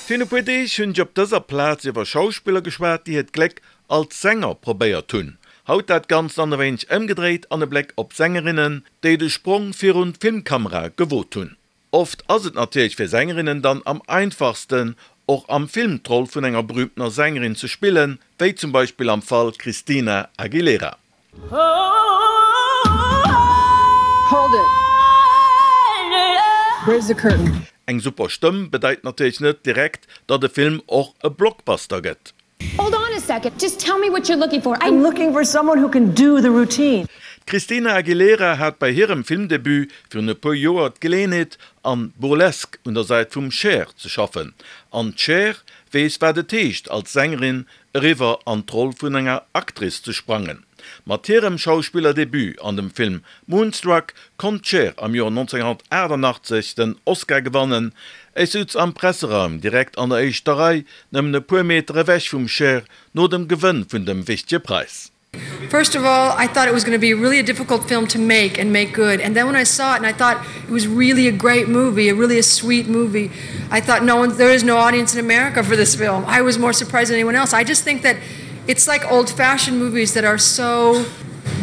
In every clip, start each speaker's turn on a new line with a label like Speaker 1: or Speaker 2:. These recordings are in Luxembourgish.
Speaker 1: Virun e puer Deeg hunn ech op dëser Plaz iwwer Schauspiller geschwat, déi hiert Gléck als Sänger probéiert hunn. Haut dat Ganzt dann e wéineg ëmgedréit an e Bléck op Sängerinnen, déi de Sprong virun d'Filmkamera gewot hunn. Oft ass et natierlech fir Sängerinnen dann am einfachsten, och am Film d'Roll vun enger berühmtener Sängerin ze spillen, wéi zum Beispill am Fall Christina Aguilera.
Speaker 2: Hold it! Where's the curtain?
Speaker 1: Eng super Stëmm bedeit natierlech net direkt, datt e Film och e Blockbuster gëtt.
Speaker 3: Hold on a second, just tell me what you're looking for, I.
Speaker 2: I'm looking for someone who can do the routine.
Speaker 1: D'Christina Aguilera hat bei hirem Filmdebut virun e puer Joer d'Geleeënheet, an Burlesque un der Säit vum Cher ze schaffen. An d'Cher weess wat et heescht, als Sängerin eriwwer an d'Roll vun enger Actrice ze sprangen. Mat hirem Schauspillerdebut an dem Film Moonstruck konnt d'Cher am Joer 1988 den Oscar gewannen. Ech sutz am Presseraum direkt an der éischter Rei, nëmmen e puer Meter ewech vum Cher, no dem Gewënn vun dem wichtege Präis.
Speaker 4: First of all, I thought it was going to be really a difficult film to make and make good. And then when I saw it and I thought it was really a great movie, a really a sweet movie, I thought no one there is no audience in America for this film. I was more surprised than anyone else. I just think that it's like old-fashioned movies that are so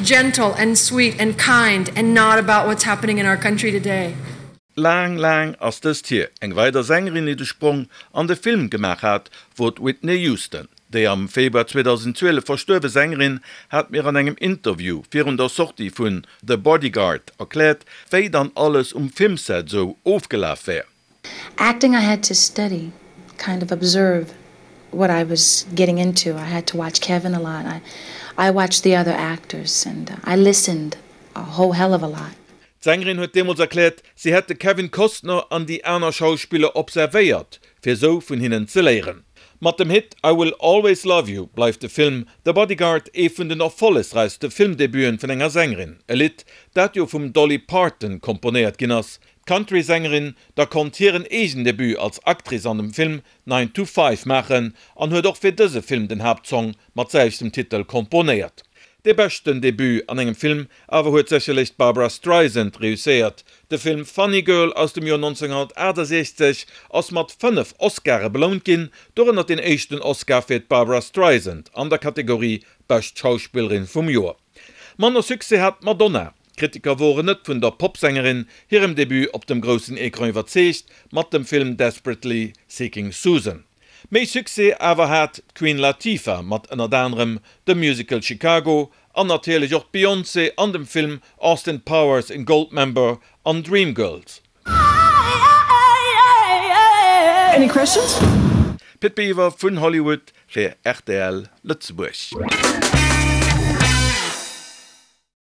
Speaker 4: gentle and sweet and kind and not about what's happening in our country today.
Speaker 1: Laang, laang ass dëst hier. Eng weider Sängerin, déi de Sprong an de Film gemaach hat, wor d'Whitney Houston. Déi am Februar 2012 verstuerwe Sängerin hat mir an engem Interview virun der Sortie vun The Bodyguard erkläert, wéi dann alles um Filmset sou ofgelaf wär.
Speaker 5: Acting I had to study, kind of observe what I was getting into. I had to watch Kevin a lot. I I watched the other actors and I listened a whole hell of a lot.
Speaker 1: D'Sängerin huet deemools erkläert, si hätt de Kevin Costner an déi aner Schauspiller observéiert, fir sou vun hinnen ze léieren. Mat dem Hit I Will Always Love You bleift de Film The Bodyguard ee vun den erfollegräichste Filmdebuten vun enger Sängerin, e Lidd, dat jo vum Dolly Parton komponéiert ginn ass. D'Country-Sängerin da konnt hiren eegen Debut als Actrice an dem Film Nine to Five maachen an huet och fir dëse Film den Haaptsong mat selwechtem Titel komponéiert. Dee beschten Debut an engem Film awer huet sécherlech d'Barbra Streisand reusséiert. De Film Funny Girl aus dem Joer 1968 ass mat 5 Oscare belount ginn, dorënner deen éischten Oscar fir d'Barbra Streisand an der Kategorie Bescht Schauspillerin vum Joer. Manner Succès hat d'Madonna. D'Kritiker woren net vun der Popsängerin hirem Debut op dem groussen Ecran iwwerzeegt mat dem Film Desperately Seeking Susan. Méi Succès awer hat d'Queen Latifah mat ënnert anerem dem Musical Chicago an natierlech och d'Beyoncé an dem Film Austin Powers in Goldmember an Dreamgirls.
Speaker 2: Any questions?
Speaker 1: Pit Biwer vun Hollywood fir rtl Lëtzebuerg.